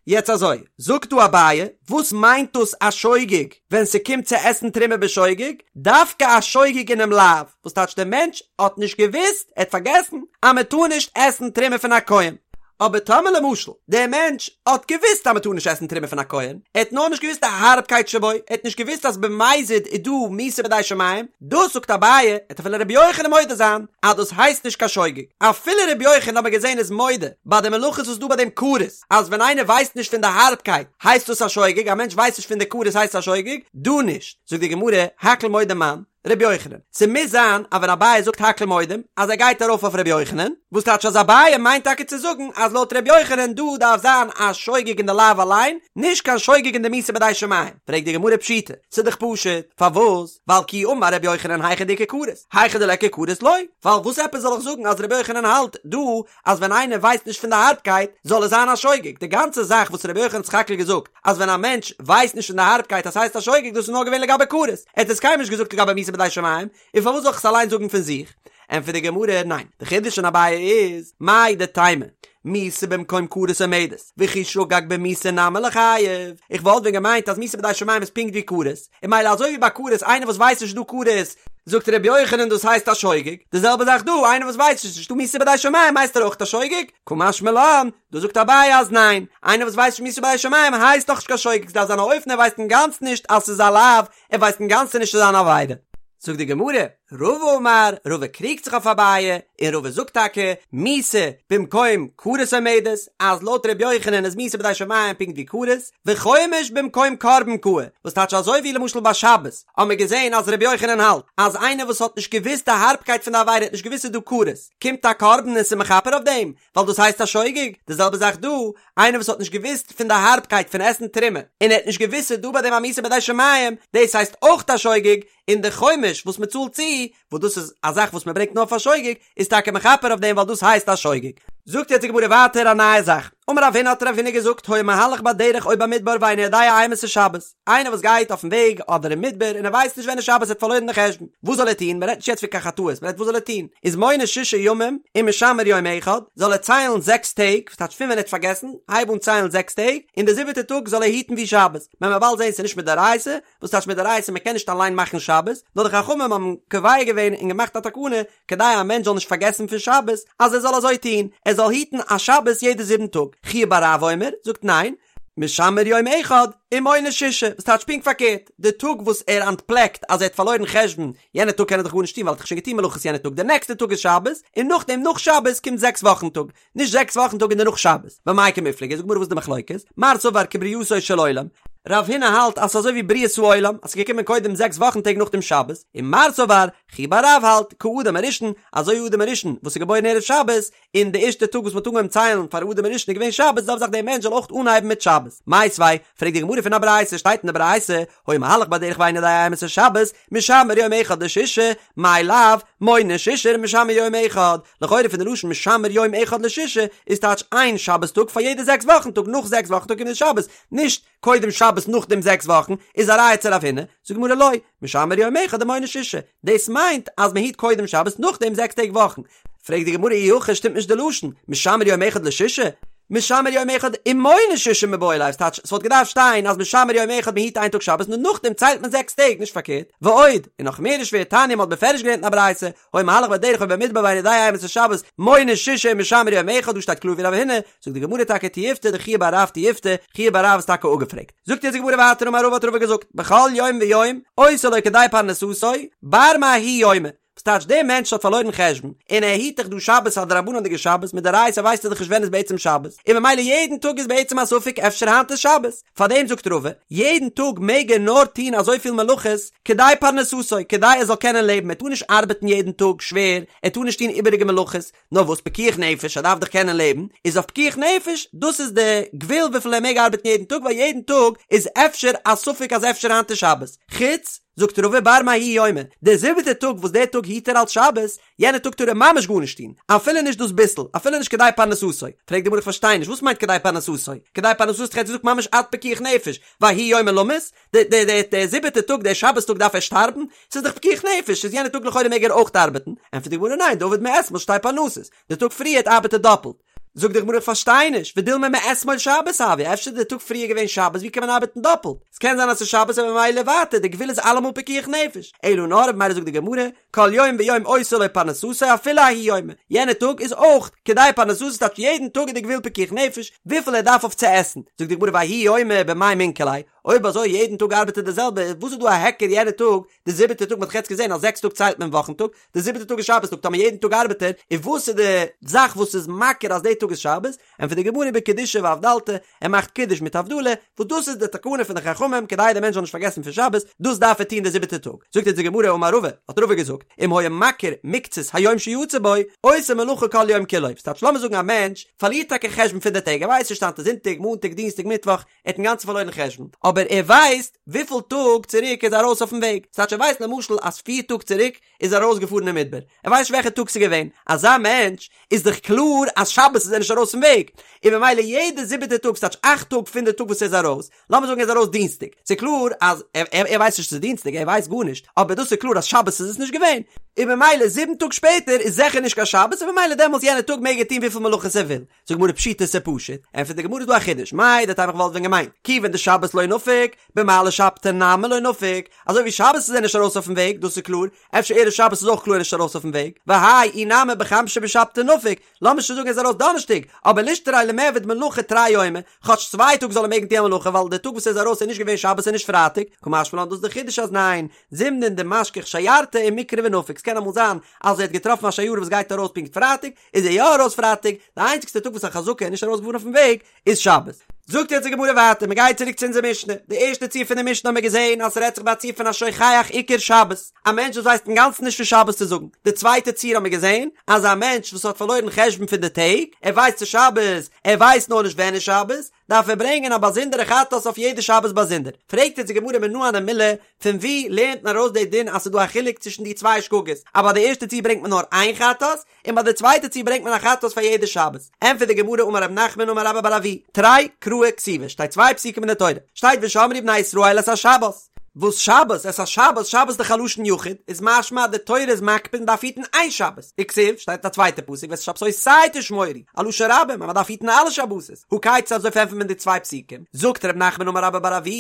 יעצט אזוי, זאגט דא אביי, וואס מיינט דאס א שוגג ווען ס'קומט צו עסן תרומה בשוגג? דווקא א שוגג אינעם לאו, וואס טייטש דער מענטש האט נישט געוואוסט, ער האט פארגעסן, אז מען טאר נישט עסן תרומה פון א כהן. אבער טאמער למשל דער מענטש האט געוואוסט אז מען טאר נישט עסן תרומה פון א כהן, ער האט נאר נישט געוואוסט די הארבקייט שבו, ער האט נישט געוואוסט אז במזיד איז דא מיתה בידי שמים, דאס זאגט אביי, עט אפילו רבי יוחנן מודה זיין אז דאס הייסט נישט קיין שוגג, אפילו רבי יוחנן האט מען געזען איז מודה ביי די מלאכות וואס איז דא ביי דעם כרת, אז ווען איינער ווייסט נישט פון די הארבקייט הייסט דאס א שוגג, א מענטש ווייסט נישט פון די כרת הייסט עס א שוגג, דא נישט, זאגט די גמרא, הכל מודים מאן, רבי יוחנן, ס'מוז זיין אז ווען אביי זאגט הכל מודים אז ער גייט ארויף אויף רבי יוחנן, וואס טייטש אז אביי מיינט טאקע צו זאגן אז לויט רבי יוחנן דא דארף זיין א שוגג אין די לאו אליין, נישט קיין שוגג אין די מיתה בידי שמים, פרעגט די גמרא פשיטא, ס'איז דאך פשוט, פארוואס? ווייל כי אמר רבי יוחנן היכא דאיכא כרת, היכא דליכא כרת לא, ווייל וואס עפעס זאל איך זאגן אז רבי יוחנן האלט דא אז ווען איינער ווייסט נישט פון די הארבקייט זאל עס זיין א שוגג, די גאנצע זאך וואס רבי יוחנן האט סך הכל געזאגט אז ווען א מענטש ווייסט נישט פון די הארבקייט אז ס'הייסט א שוגג דאס איז נאר געווען לגבי כרת, ער האט עס קיינמאל נישט געזאגט לגבי מיתה בידי שמים, און פארוואס זאל איך עס אליין זאגן פון זיך? ענטפערט די גמרא, ניין, די חידוש פון אביי איז, מהו דתימא, מיתה במקום כרת עומדת, וכי שגג במיתה נמי ליחייב, איך וואלט ווען געמיינט אז מיתה בידי שמים איז פונקט ווי כרת, און ממילא אזוי ווי ביי כרת איינער וואס ווייסט נישט דא כרת. זאגט ר' יוחנן דאס הייסט א שוגג, די זעלבע זאך דא, איינער וואס ווייסט נישט ס'נישטא מיתה בידי שמים הייסט ער אויך א שוגג? קא משמע לן, דא זאגט אביי אז ניין, איינער וואס ווייסט נישט מיתה בידי שמים הייסט נאך נישט קיין שוגג, ס'דארף זיין א אופן ער ווייסט אינגאנצן נישט אז ס'איז א לאו, ער ווייסט אינגאנצן נישט ס'איז אן עבירה. זאגט די גמרא, רבא אמר, רבא קריגט זיך אויף אביי, און רבא זאגט טאקע, מיתה במקום כרת עומדת, אז לויט ר' יוחנן איז מיתה בידי שמים פונקט ווי כרת, וחומש במקום קרבן קאי, וואס טייטש אזוי ווי למשל ביי שבת האבן מיר געזען אז ר' יוחנן האלט אז איינער וואס האט נישט געוואוסט די הארבקייט פון די עבירה האט נישט געוואוסט ס'איז דא כרת, קומט א קרבן און ס'איז מכפר אויף דעם, ווייל דאס הייסט א שוגג, די זעלבע זאך דא, איינער וואס האט נישט געוואוסט פון די הארבקייט פון עסן תרומה, און ער האט נישט געוואוסט ס'איז דא ביי דעם א מיתה בידי שמים, דאס הייסט אויך א שוגג, און די חומש וואס מען צאלט צו, וואס דאס איז א זאך וואס מען ברענגט נאר פאר שוגג, איז טאקע מכפר אויף דעם ווייל דאס הייסט א שוגג. זאגט יעצט די גמרא ווייטער א נייע זאך, אמר רב הונא האט רב הונא געזאגט היה מהלך בדרך או במדבר ואינו יודע אימתי שבת, איינער וואס גייט אויפן וועג אדער אין מדבר און ער ווייסט נישט ווען איז שבת ער האט פארלוירן די חשבון, וואס זאל ער טון, מען רעדט נישט יעצט פון קיין חטאות, מען רעדט וואס זאל ער טון, איז מונה ששה ימים ומשמר יום אחד, זאל ער ציילן זעקס טעג, וואס טייטש פון ווען ער האט פארגעסן, הייב אן ציילן זעקס טעג, און די זיבעטע טאג זאל ער היטן ווי שבת, מען וועט באלד זען ס'איז נישט מדאורייתא, וואס טייטש מדאורייתא מען קען נישט אליין מאכן שבת, נאר די חכמים האבן קובע געווען און געמאכט א תקנה כדי א מענטש זאל נישט פארגעסן פון שבת, אז ער זאל אזוי טון, ער זאל היטן א שבת יעדע זיבן טאג. חייא בר רב אומר, זאגט ניין, משמר יום אחד ומונה ששה, וואס טייטש פונקט פארקערט, די טאג וואס ער אנטפלעקט אז ער האט פארלוירן חשבון, יענע טאג קען ער דאך גארנישט טון ווייל ער האט דאך שוין געטון מלאכות יענע טאג, די נעקסטע טאג איז שבת, און נאכדעם נאך שבת קומט זעקס וואכן טאג, נישט זעקס וואכן טאג און דערנאך שבת. במאי קמיפלגי, זאגט די גמרא וואס איז די מחלוקת? מר סבר כברייתו של עולם, רב הונא האלט אז ס'איז אזוי ווי בריאת העולם, אז ס'איז געקומען קודם זעקס וואכן טעג נאכדעם שבת, און מר סבר, חייא בר רב האלט, כאדם הראשון, אזוי ווי אדם הראשון וואס איז געבוירן ערב שבת, און די ערשטע טאג וואס מ'האט אנגעהויבן ציילן פאר אדם הראשון איז געווען שבת, זעלבע זאך דער מענטש זאל אויך אנהייבן מיט שבת. מיתיבי, פרעגט די גמרא פון א ברייתא, שטייט אין די ברייתא, היה מהלך בדרך ואינו יודע אימתי שבת, משמר יום אחד לשישה, מאי לאו, מונה שישה ומשמר יום אחד, לכאורה פון די לשון משמר יום אחד לשישה איז טייטש איין שבת טאג פאר יעדע זעקס וואכן טאג נאך זעקס וואכן טאג קומט די שבת, נישט קודם שבת נאכדעם זעקס וואכן, איז א ראיה צו רב הונא, זאגט די גמרא לא, משמר יום אחד ומונה שישה, דאס מיינט אז מען היט קודם שבת נאכדעם זעקס טעג וואכן, פרעגט די גמרא אי הכי שטימט נישט די לשון, משמר יום אחד לשישה? משמר יום אחד ומונה שישה מיבעי ליה, ס'טייטש ס'וואלט געדארפט שטיין אז משמר יום אחד מ'היט איין טאג שבת נאר נאכדעם ציילט מען זעקס טעג נישט פארקערט, ועוד, און נאך מער איז שווער תניא מ'האט בפירוש געלערנט אין א ברייתא, היה מהלך בדרך או במדבר ואינו יודע אימתי שבת, מונה שישה ומשמר יום אחד דא שטייט קלאר ווי רב הונא, זאגט די גמרא טאקע תיובתא דחייא בר רב תיובתא, חייא בר רב איז טאקע אפגעפרעגט. זאגט יעצט די גמרא ווייטער אמר רבא האט רבא געזאגט, בכל יום ויום עושה לו כדי פרנסתו, בר מההוא יומא, וואס טייטש דער מענטש האט פארלוירן חשבון, און ער היט דאך דא שבת א דרבנן'דיגע שבת, מדאורייתא ווייסט ער דאך נישט ווען איז בעצם שבת, און ממילא יעדן טאג איז בעצם א ספק אפשר היינט איז שבת, פארדעם זאגט רבא, יעדן טאג מעג ער נאר טון אזויפיל מלאכות כדי פרנסתו, כדי ער זאל קענען לעבן, ער טאר נישט ארבעטן יעדן טאג שווער, ער טאר נישט טון איבעריגע מלאכות, נאר וואס פיקוח נפש, ער דארף דאך קענען לעבן, איז אויף פיקוח נפש, דאס איז די גבול וויפיל ער מעג ארבעטן יעדן טאג, ווייל יעדן טאג איז אפשר א ספק אז אפשר היינט איז שבת, חוץ, זאגט רבא בר מההוא יומא, דער זיבעטער טאג וואס דער טאג היט ער אלס שבת, יענער טאג טאר ער ממש גארנישט טון, אפילו נישט דאס ביסל, אפילו נישט כדי פרנסתו. פרעגט די גמרא איך פארשטיי נישט, וואס מיינט כדי פרנסתו? כדי פרנסתו האט ער געזאגט ממש עד פיקוח נפש, וההוא יומא למות? דער דער דער דער זיבעטער טאג דער שבת טאג דארף ער שטארבן? ס'איז דאך פיקוח נפש, איז יענער טאג לכאורה מעג ער אויך ארבעטן? ענטפערט די גמרא ניין, דעביד מאתמול שתי פרנסות, די טאג פריערט ארבעט ער דאפלט. זאגט די גמרא איך פארשטיי נישט, ודילמא מאתמול שבת הואי, אפשר איז די טאג פריער געווען שבת, ווי קען מען ארבעטן דאפלט? ס'קען זיין אז ס'איז שבת און ממילא ווייטער, די גבול איז אלעמאל פיקוח נפש. אלא נאר ממילא זאגט די גמרא, כל יום ויום עושה לו פרנסתו אפילו ההוא יומא, יענע טאג איז אויך כדי פרנסתו ס'טייטש יעדן טאג איז די גבול פיקוח נפש וויפיל ער דארף אויף צו עסן, זאגט די גמרא וההוא יומא במאי מינכר ליה, אויב אזוי יעדן טאג ארבעט ער די זעלבע, וואס איז דא א היכר יענע טאג, די זיבעטע טאג מ'האט דאך יעצט געזען אז זעקס טאג ציילט מען וואכן טאג, די זיבעטע טאג איז שבת טאג, טאמער יעדן טאג ארבעט ער, און וואס איז די זאך וואס איז מכיר אז די טאג איז שבת? ענטפערט די גמרא בקידושא ואבדלתא, ער מאכט קידוש מיט הבדלה, וואס דאס איז די תקנה פון די חכמים כדי די מענטש זאל נישט פארגעסן פון שבת, דאס דארף ער טון די זיבעטע טאג. זאגט אונז די גמרא אמר רבא, האט רבא געזאגט, אם היה מכיר מקצת היום שיצא בו, עושה מלאכה כל יום כולו, ס'טייטש לאמיר זאגן א מענטש פארלירט טאקע חשבון פון די טעג, ער ווייסט נישט היינט איז זונטאג, מאנטאג, דינסטאג, מיטוואך, ער האט אינגאנצן פארלוירן חשבון, אבער ער ווייסט וויפיל טאג צוריק ער איז ארויס אויפן וועג, ס'טייטש ער ווייסט למשל אז פיר טאג צוריק איז ער ארויסגעפארן אין מדבר, ער ווייסט נישט וועלכע טאג ס'איז געווען, אזא מענטש איז דאך קלאר אז שבת איז ער נישט ארויס פון וועג, און ממילא יעדע זיבעטע טאג, ס'טייטש אכט טאג פון די טאג וואס ער איז ארויס, לאמיר זאגן ער איז ארויס דינסטאג, ס'איז קלאר אז ער ווייסט נישט ס'איז דינסטאג, ער ווייסט גארנישט, אבער דאס איז קלאר אז שבת איז עס נישט געווען. און במילא זיבן טאג שפעטער איז זיכער נישט קיין שבת און במילא דעמאלטס יענע טאג מעג ער טון וויפיל מלאכות ער וויל. זאגט גמרא פשיטא ס'איז פשוט, ענטפערט די גמרא איז דא א חידוש, מהו דתימא כ'וואלט ווען געמיינט, כיוון דשבת לא נפיק, במעלי שבתא נמי לא נפיק, אזוי ווי שבת איז ער נישט ארויס אויפן וועג, דאס איז קלאר, אפשר ערב שבת איז אויך קלאר נישט ארויס אויפן וועג, והאי אי נמי בחמשא בשבתא נפיק, לאמיר שוין זאגן ער איז ארויס דאנערשטאג, אבער לישתרי למיעבד מלאכה תרי יומי, כאטש צוויי טאג זאל ער מעגן טון א מלאכה ווייל די טאג וואס ער איז ארויס איז נישט געווען שבת און נישט פרייטאג, קא משמע לן דאס איז די חידוש אז ניין, זימנין דמשכח שיירתא ומיקרי ונפיק, ס'קען אמאל זיין אז ער האט געטראפן א שיירה וואס גייט ארויס פונקט פרייטאג, איז ער יא ארויס פרייטאג, די איינציגסטע טאג וואס א חזקה איז נישט ארויס געפארן אויפן וועג איז שבת. זאגט יעצט די גמרא ווייטער, מען גייט צוריק צו אונזער משנה, די ערשטע ציור פון די משנה האבן מיר געזען אז ס'רעדט זיך ביי א ציור פון א שוכח עיקר שבת, א מענטש וואס ווייסט אינגאנצן נישט פון שבת צו זאגן, די צווייטע ציור האבן מיר געזען אז א מענטש וואס האט פארלוירן חשבון פון די טעג, ער ווייסט ס'איז שבת, ער ווייסט נאר נישט ווען איז שבת, דארף ער ברענגען א באזונדערע חטאת אויף יעדע שבת באזונדער. פרעגט יעצט די גמרא מנא הני מילי, פון וואו לערנט מען ארויס די דין אז ס'איז דא א חילוק צווישן די צוויי שגגות, אז ביי די ערשטע ציור ברענגט מען נאר איין חטאת, און ביי די צווייטע ציור ברענגט מען א חטאת פאר יעדע שבת? ענטפערט די גמרא אמר רב נחמן אמר רבה בר אבוה, תרי קראי כתיבי, שטייט צוויי פסוקים אין די תורה, שטייט ושמרו בני ישראל את השבת, וואס שבת, את השבת, שבת איז דאך א לשון יחיד, איז משמע אז די תורה איז מקפיד מ'דארף היטן איין שבת, וכתיב, שטייט אין א צווייטע פסוק ואת שבתותי תשמורו, א לשון רבים אז מ'דארף היטן אלע שבתות, הא כיצד אזוי פארענטפערט מען די צוויי פסוקים, זאגט ר' נחמן אמר רבה בר אבוה,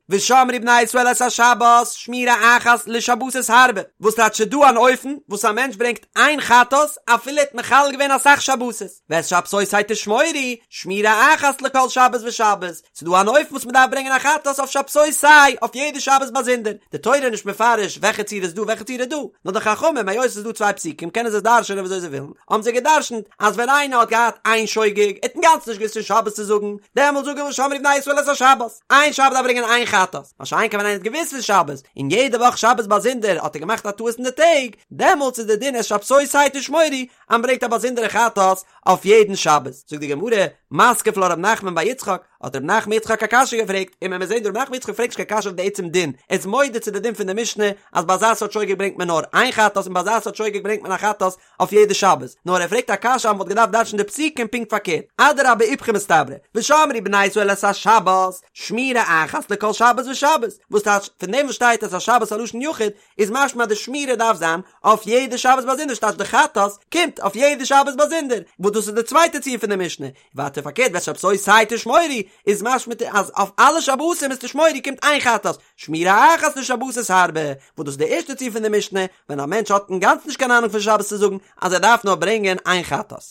ושמרו בני ישראל את השבת, שמירה אחת לשבתות הרבה, וואס טייטש ס'דא אן אופן וואס א מענטש ברענגט איין חטאת אפילו ער האט מחלל געווען אסאך שבתות, ואת שבתותי תשמורו, שמירה אחת לכל שבת ושבת, ס'דא אן אופן וואס מ'דארף ברענגען א חטאת אויף שבתותי אויף יעדע שבת באזונדער, די תורה איז נישט מפרש וועלכע ציור איז דא וועלכע ציור איז דא, נאר די חכמים היות ס'איז דא צוויי פסוקים קענען זיי עס דרש'ענען וויאזוי זיי ווילן, האבן זיי געדרש'נט אז ווען איינער האט געהאט איין שוגג, ער האט אינגאנצן נישט געוואוסט פון שבת צו זאגן, דעמאלט זאג איך ושמרו בני ישראל את השבת, איין שבת דארף ברענגען איין חטאת, מה שאין כן ווען איינער האט געוואוסט פון שבת, און יעדע וואך שבת באזונדער האט ער געמאכט א טעות אין די טעג, דעמאלטס איז די דין את שבתותי תשמורו, אז מ'ברענגט א באזונדערע חטאת אויף יעדן שבת. זאגט די גמרא, מתקיף לה רב נחמן בר יצחק, האט רב נחמן יצחק א קשיא געפרעגט, און מען מוז זען דא רב נחמן יצחק פרעגט נישט קיין קשיא אויף די עצם דין, ער איז מודה צו די דין פון די משנה אז ביי אזא סארט שוגג ברענגט מען נאר איין חטאת און ביי אזא סארט שוגג ברענגט מען א חטאת אויף יעדע שבת, נאר ער פרעגט א קשיא אז מען וואלט געדארפט דרש'ן די פסוקים פונקט פארקערט, אדרבה איפכא מסתברא, ושמרו בני ישראל את השבת, שמירה אחת לכל שבת ושבת, וואס טייטש, פון דעם וואס שטייט את השבת א לשון יחיד, איז משמע אז די שמירה דארף זיין אויף יעדע שבת באזונדער ס'טייטש די חטאת קומט אויף יעדע שבת באזונדער, וואס דאס איז די צווייטע ציור פון די משנה, ווייטער פארקערט ואת שבתותי תשמורו איז משמע אז אויף אלע שבתים איז תשמורו קומט איין חטאת, שמירה אחת לשבתות הרבה, וואס דאס איז די ערשטע ציור פון די משנה, ווען א מענטש האט אינגאנצן נישט קיין אהנונג פון שבת צו זאגן אז ער דארף נאר ברענגען איין חטאת.